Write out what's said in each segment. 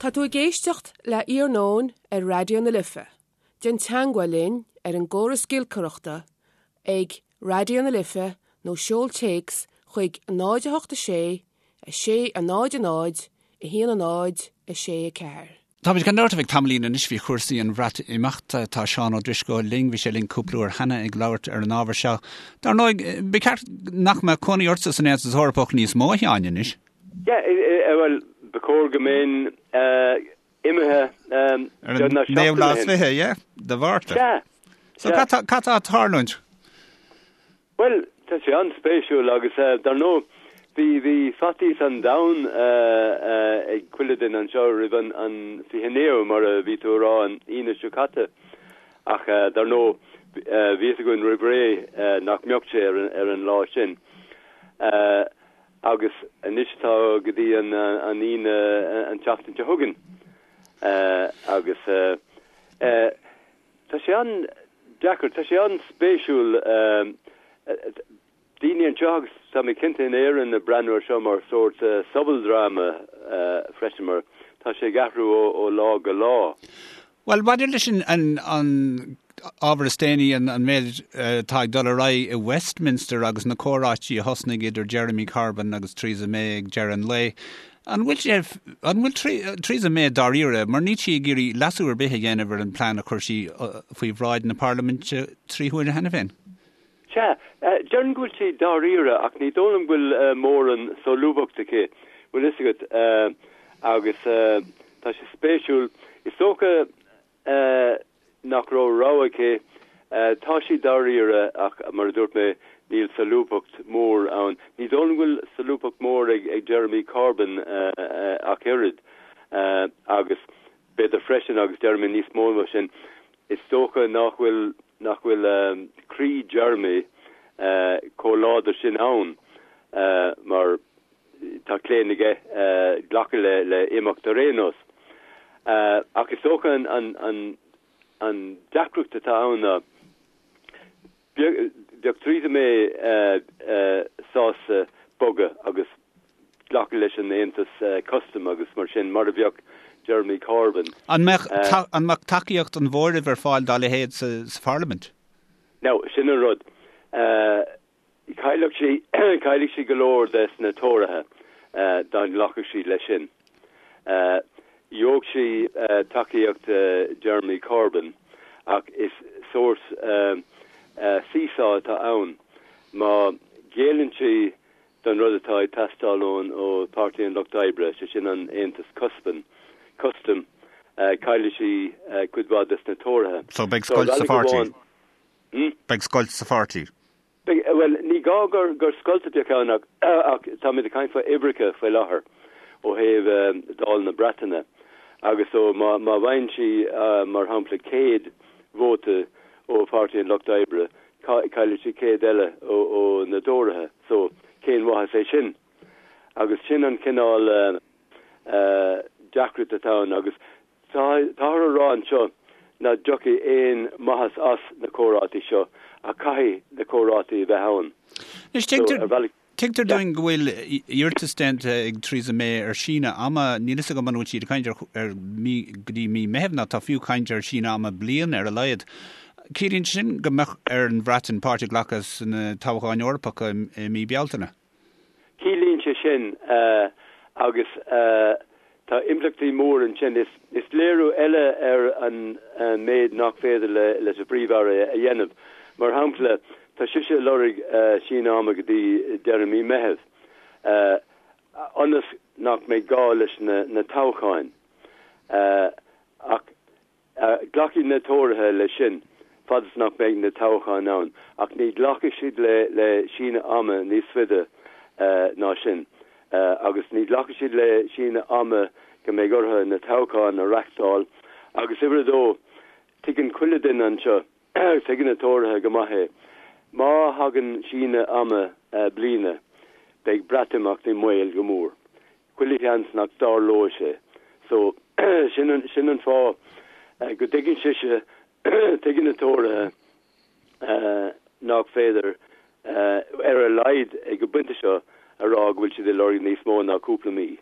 Tá tú ag éisteacht le Iarnóin ar Raidió na Life. Déan teagmháil linn ar an gcóras giolcaireachta ag Raidió na Life nó seol téacs chuig 0 8 6 6 0 0 1 0 6 4. Táimid gan dabht ar feadh tamaillín anois faoi chúrsaí an Bhreatimeachta. Tá Seán Ó Drisceoil linn, bhí sé linn cúpla uair cheana ag labhairt ar an ábhar seo. Dar ndóigh, ba cheart nach mbeadh cónaí ortsa san Aontas Eorpach níos mó, a Sheáin, anois. Yeah, bhuel, ba chóir go mbeinn imithe Ar an naoú lá is fiche, yeah, de Mhárta. Sea. So cad tá ag tarlúint? Bhuel, tá sé an-spéisiúil agus dar ndóigh bhí bhí faitíos an domhain ag chuile duine anseo roimh an an 29ú mar a bhí tú a rá an Aoine seo caite ach dar ndóigh bhí a fhios againn roimh ré nach mbeadh sé ar ar an lá sin. Agus anois tá go dtí an Aoine an tseachtain seo chugainn agus tá sé an-deacair, tá sé an-spéisiúil daoine anseo agus tá mé cinnte in Éirinn ag breathnú ar seo mar sórt sobaldráma freisin mar tá sé ag athrú ó lá go lá. Bhuel, maidir leis an ábhar is déanaí, an méid atá ag dul ar aghaidh i Westminster agus na comhráití a thosnaigh idir Jeremy Corbyn agus Theresa May ag deireadh an lae, an bhfuil sé, an bhfuil Theresa May dáiríre, mar níl sí ag iarraidh leasú ar bith a dhéanamh ar an bplean a chuir sí faoi bhráid na Parlaiminte 3 huaire cheana féin? Sea, déarfainn go bhfuil sí dáiríre ach ní dóigh liom go bhfuil mórán solúbthacht aici, bhfuil fhios agat, agus tá sé spéisiúil. Is dócha nach raibh rogha aici. Tá sí dáiríre ach mar a dúirt mé, níl solúbthacht mhór ann. Ní dóigh liom go bhfuil solúbthacht mhór ag Jeremy Corbyn ach oiread agus b'fhéidir freisin, agus déarfaidh mé níos mó ná sin, is dócha nach bhfuil nach bhfuil croí Jeremy chomh láidir sin ann mar tá claon aige glacadh le imeacht ar aon nós. Ach is dócha an deacracht atá ann ná Bheadh Theresa May sásta bogadh agus glacadh leis an aontas custaim agus mar sin, mar a bheadh Jeremy Corbyn. An mbeadh an mbeadh tacaíocht an mhóraimh ar fáil dá leithéid sa Pharlaimint? Now, sin an rud. Chaillfeadh sí, chaillfeadh sí go leor des na Tóraithe dá nglacfadh sí leis sin. Gheobhadh sí tacaíocht Jeremy Corbyn ach is sórt seesaw atá ann. Má ghéilleann sí don rud atá ag teastáil ón ó Pháirtí an Lucht Oibre, sé sin an Aontas Cuspain, Custaim, caillfidh sí cuid mhaith des na Tóraithe. So beidh scoilt sa pháirtí? Beidh scoilt sa pháirtí? Beidh, bhuel, ní gá gur gur scoilt a bheadh ann ach ach táimid ag caint faoi uimhreacha faoi láthair ó thaobh Dáil na Breataine agus so má má bhfaigheann sí mar shampla 100 vóta ó Pháirtí an Lucht Oibre caillfidh sí 100 eile ó ó na dTóraithe so cén mhaitheas é sin? Agus sin an cineál deacracht atá ann agus Táthar a rá anseo nach dtiocfaidh aon mhaitheas as na comhráití seo ach caithfidh na comhráití a bheith ann. Anois, tuigtear, tuigtear dúinn go bhfuil iarratas déanta ag Theresa May ar síneadh ama. Níl fhios agam an bhfuil siad ag caint ar, ar mí, go dtí mí Meithimh nó tá fiú caint ar síneadh ama bliain ar a laghad. Ciallaíonn sin go mbeadh ar an Bhreatain páirt a ghlacadh sna toghcháin Eorpacha i mí Bealtaine. Ciallaíonn sé sin, agus tá impleachtaí mór ansin, is léiriú eile ar an méid nach féidir leis an bPríomh-Aire a dhéanamh. Mar shampla, tá sise ag lorg síneadh ama go dtí deireadh mí Meithimh, ionas nach mbeidh gá leis na toghcháin. Ach Glacfaidh na Tóraithe leis sin fad is nach mbeidh na toghcháin ann, ach ní ghlacfaidh siad le síneadh ama níos faide ná sin. Agus ní ghlacfaidh siad le síneadh ama go mbeidh orthu na toghcháin a reachtáil. Agus uimhir a dó, tuigeann chuile duine anseo, tuigeann na Tóraithe go maith é, má thagann síneadh ama bliana, beidh Breatimeacht i mbaol go mór. Chuile sheans nach dtarlóidh sé. So, sin an, sin an fáth go dtuigeann sise, tuigeann na Tóraithe nach féidir, ar a laghad ag an bpointe seo, a rá go bhfuil siad ag lorg níos mó ná cúpla mí.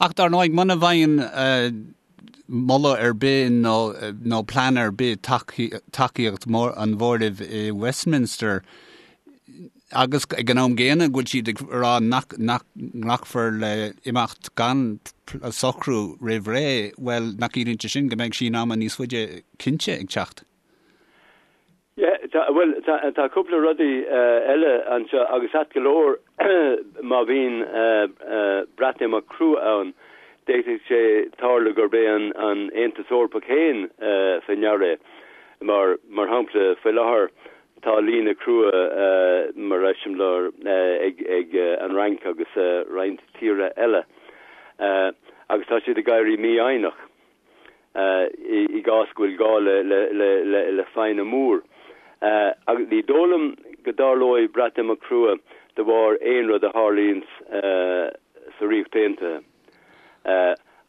Ach dar ndóigh, muna bhfaigheann. moladh ar bith nó nó plean ar bith tacaíocht an mhóraimh i Westminster agus ag an am gcéanna go bhfuil siad ag rá nach nach nglacfar le imeacht gan socrú roimh ré, bhuel, nach gciallaíonn sé sin go mbeidh síneadh ama níos faide cinnte ag teacht? Yeah, tá, bhuel, tá, tá cúpla rudaí eile anseo agus ait go leor má bhíonn Breatimeacht crua ann, d'fhéadfadh sé tarlú gurb é an, an Aontas Eorpach féin faoi ndeara é. Mar, mar shampla, faoi láthair tá líne crua mar eiseamláir ag, ag an Fhrainc agus roinnt tíortha eile agus tá siad ag éirí mífhoighneach. i gcás go bhfuil gá le foighne mór. Agus ní dóigh liom go dtarlóidh Breatimeacht crua de bharr aon rud a tharlaíonns sa Ríocht Aontaithe,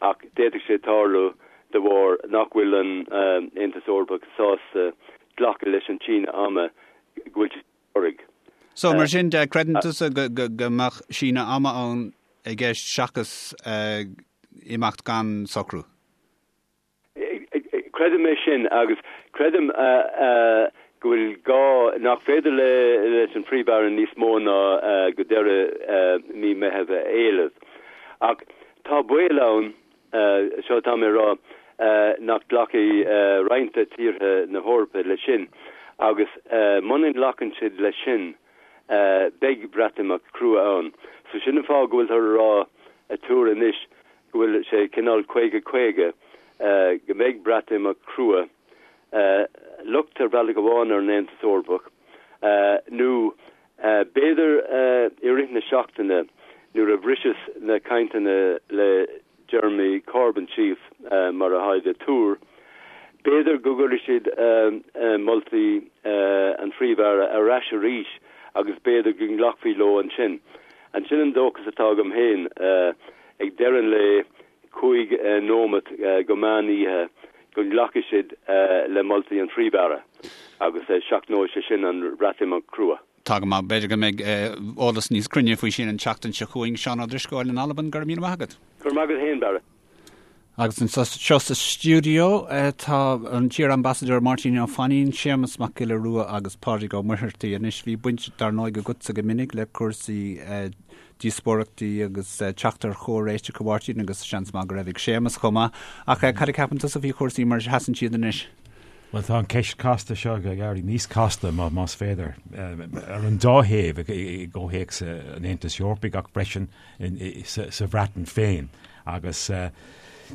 ach d'fhéadfadh sé tarlú de bharr nach bhfuil an Aontas Eorpach sásta glacadh leis an síneadh ama go bhfuil siad ag lorg. So, mar sin de, creideann tusa go mbeadh síneadh ama ann i gceist seachas imeacht gan socrú? Creidim é sin agus creidim go bhfuil gá, nach féidir leis an Phríomh-Aire níos mó ná go deireadh mí Meitheamh a éileamh. Ach tá baol ann, seo atá mé a rá, nach nglacfaidh roinnt de tíortha na hEorpa leis sin agus muna nglacann siad leis sin, beidh Breatimeacht crua ann. So sin an fáth go bhfuiltear a rá ag tuar anois go bhfuil sé cineál 50 50 go mbeidh Breatimeacht crua, locht ar bhealach amháin ar an Aontas Eorpach nó b'fhéidir i rith na seachtaine nuair a bhriseas na cainteanna le Jeremy Corbyn síos, mar atáid ag tuar. B'fhéidir go gcuirfidh siad moltaí an Phríomh-Aire ar ais arís agus b'fhéidir go nglacfaí leo ansin. Ansin an dóchas atá agam féin. Ag deireadh an lae, 5 nóimeat go meán oíche, go nglacfaidh siad le moltaí an Phríomh-Aire agus seachnóidh sé sin an Bhreatimeacht crua. Tá go maith. B'fhéidir go mbeidh eolas níos cruinne faoi sin an tseachtain seo chugainn. Seán Ó Drisceoil in Albain, go raibh míle maith agat. Go raibh maith agat féin, Barra. Agus anseo sa stiúideo tá an t-iar-ambasadóir Máirtín Ó Fainín, Séamus Mac Giolla Rua agus Pádraig Ó Muircheartaigh. Anois bhí baint dar ndóigh agatsa go minic le cúrsaí díospóireachtaí agus teacht ar chomhréiteach a Mháirtín agus seans maith go raibh ag Séamus chomh maith. Ach cad a cheapann tusa faoi chúrsaí mar a sheasann siad anois? Bhuel, tá an ceist casta seo ag éirí níos casta, más féidir, ar an dá thaobh, i gcomhthéacs an Aontais Eorpaigh ach freisin sa Bhreatain féin. Agus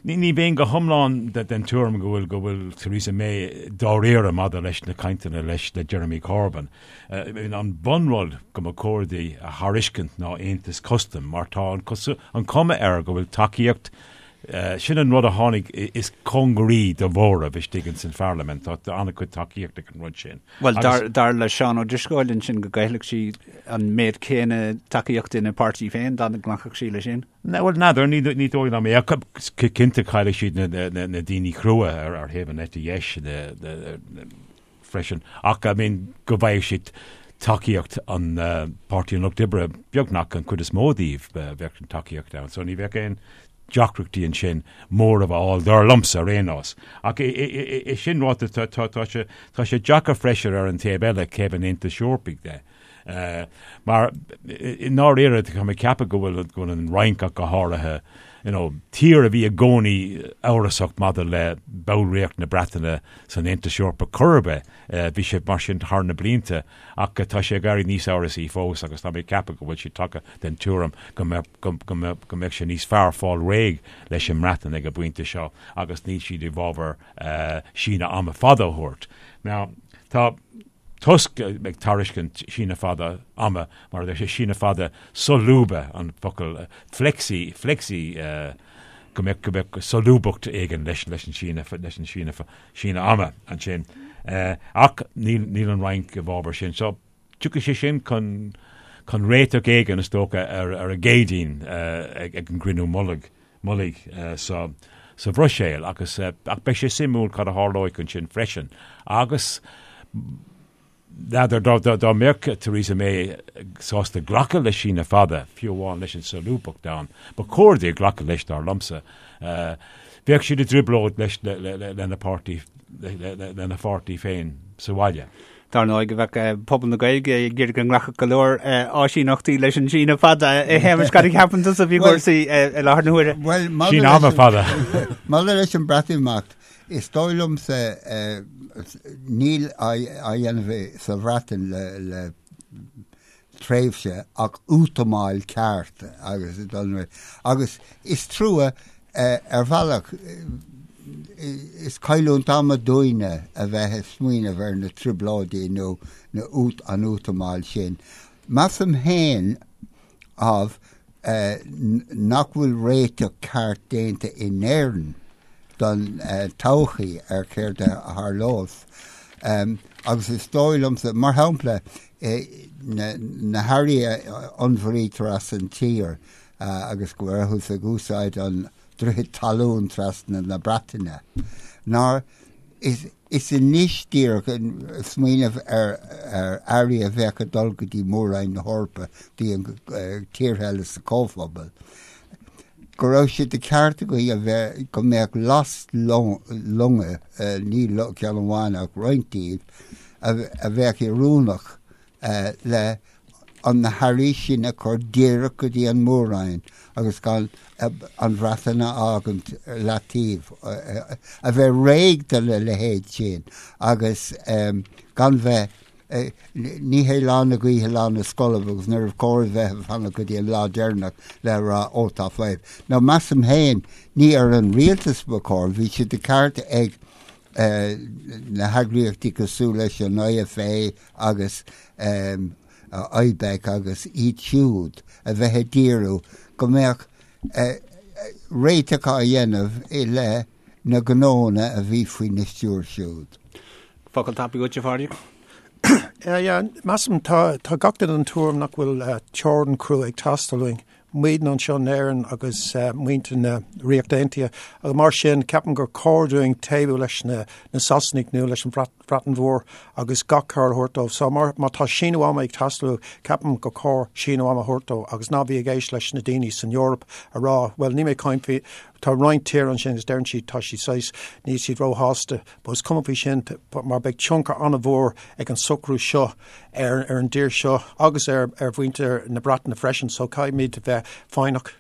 ní bheinn go hiomlán den tuairim go bhfuil go bhfuil Theresa May dáiríre maidir leis na cainteanna leis le Jeremy Corbyn. An bunrud go mba chóir di a thairiscint ná aontas custaim mar tá an cuma air go bhfuil tacaíocht Sin an rud a tháinig is cóngaraí do mhóramh istigh ins an pharlaimint. Tá an-chuid tacaíocht ag an rud sin. Bhuel, dar le Seán Ó Drisceoil ansin go gcaillfeadh sí an méid céanna tacaíochta ina páirtí féin dá nglacfadh sí leis sin. Bhuel, n'fheadar, ní dóigh liom é. Cinnte caillfidh siad na daoine crua ar thaobh an eite dheis freisin. Ach, I mean, go bhfaigheadh siad tacaíocht an Páirtí an Lucht Oibre, beagnach an chuid is mó díobh, bheadh an tacaíocht ann. So ní bheadh aon deacrachtaí ansin móramh a fháil, dar liomsa ar aon nós. Ach é sin ráite, tá sé tá sé deacair freisin ar an taobh eile, taobh an Aontais Eorpaigh de. Mar i ndáiríre, tá mé ag ceapadh go bhfuil go bhfuil an Fhrainc ach go háirithe, you know, tír a bhí i gcónaí amhrasach maidir le ballraíocht na Breataine san Aontas Eorpach chor ar bith, bhí sé mar sin thar na blianta ach tá sé ag éirí níos amhrasaí fós agus tá mé ag ceapadh go bhfuil siad tagtha den tuairim go mbeadh go mbeadh go mbeadh sé níos fearr fáil réidh leis an mBreatain ag an bpointe seo agus níl siad i bhfabhar síneadh ama fada a thabhairt. Now, tá Tusk ag tairiscint síneadh fada ama, mar a deir sé, síneadh fada solúbtha an focal flexi, flexi, go mbeadh, go mbeadh solúbthacht éigin leis, leis an síneadh, leis an síneadh, síneadh ama ansin. Ach níl, níl an Fhrainc i bhfabhar sin. So, tiocfaidh sé sin chun, chun réiteach éigin, is dócha, ar, ar an gCéadaoin ag, ag an gcruinniú mullaigh. mullaigh sa Bhruiséil agus ach beidh sé suimiúil cad a tharlóidh ansin freisin agus n'fheadar dá dá mbeadh Theresa May sásta glacadh le síneadh fada, fiú amháin leis an solúbthacht ann, ba chóir di glacadh leis dar liomsa. Bheadh siad i dtrioblóid leis lena páirtí lena pháirtí féin sa bhaile. Dar ndóigh go bheadh pobal na Gaeilge ag iarraidh go nglacfadh go leor áisíneachtaí leis an síneadh fada. A Shéamais, cad a cheapann tusa faoi chúrsaí i láthair na huaire? Bhuel, Síneadh ama fada. Maidir leis an Breatimeacht, is dóigh liomsa níl á dhéanamh sa Bhreatain le tréimhse ach útamáil ceart agus agus is trua ar bhealach is cailliúint ama dúinne a bheith ag smaoineamh ar na trioblóidí nó na an útamáil sin. Measaim féin ámh nach bhfuil réiteach ceart déanta in Éirinn don todhchaí ar céard a tharlós. Agus is dóigh liomsa, mar shampla, na hearraí a onnmhairítear as an tír agus go rabhthas ag úsáid an droichead talún trasna na Breataine, nár is anois díreach smaoineamh ar earraí a bheadh ag dul go dtí Mór-Roinn na hEorpa, dtí an tíortha eile sa Chomhphobal, go raibh sé de cheart againn a bheith, go mbeadh lastlonga, ní ceann amháin ach roinnt díobh, a bheadh oiriúnach le an na hearraí sin a chur díreach go dtí an Mór-Roinn agus gan an Bhreatain a fhágaint leataobh, a bheith réidh do na leithéid sin agus gan bheith, ní hé lá na gaoithe lá na scolb agus níorbh chóir a bheith ag fanacht go dtí an lá deireanach le rá ó tá fadhb. Now measaim féin, ní ar an rialtas ba chóir, bhí sé de cheart ag na heagraíochtaí cosúil leis an IFA agus IBEC agus iad siúd a bheith ag díriú go mbeadh réiteach á dhéanamh i leith na gnónna a bhí faoina stiúir siúd. Focal tapaidh uait, a Phádraig? Yeah, measaim tá tá gach duine den tuairim nach bhfuil teorainn crua ag teastáil uainn. Muidne anseo in Éirinn agus muintir na Ríochta Aontaithe agus mar sin ceapaim gur cóir dúinn taobhú leis na Sasanaigh nó leis an Bhreatain Mhór agus gach cabhair a thabhairt dóibh. So má tá síneadh ama ag teastáil uathu, ceapaim gur cóir síneadh ama a thabhairt dóibh agus ná bí ag éist leis na daoine san Eoraip a rá bhuel níl mé ag caint faoi tá roinnt tír ansin agus deireann siad tá siad saghas níl siad róshásta but is cuma faoi sin mar beidh tionchar an-mhór ag an socrú seo ar ar an dtír seo agus ar ar mhuintir na Breataine freisin so caithfimid bheith foighneach.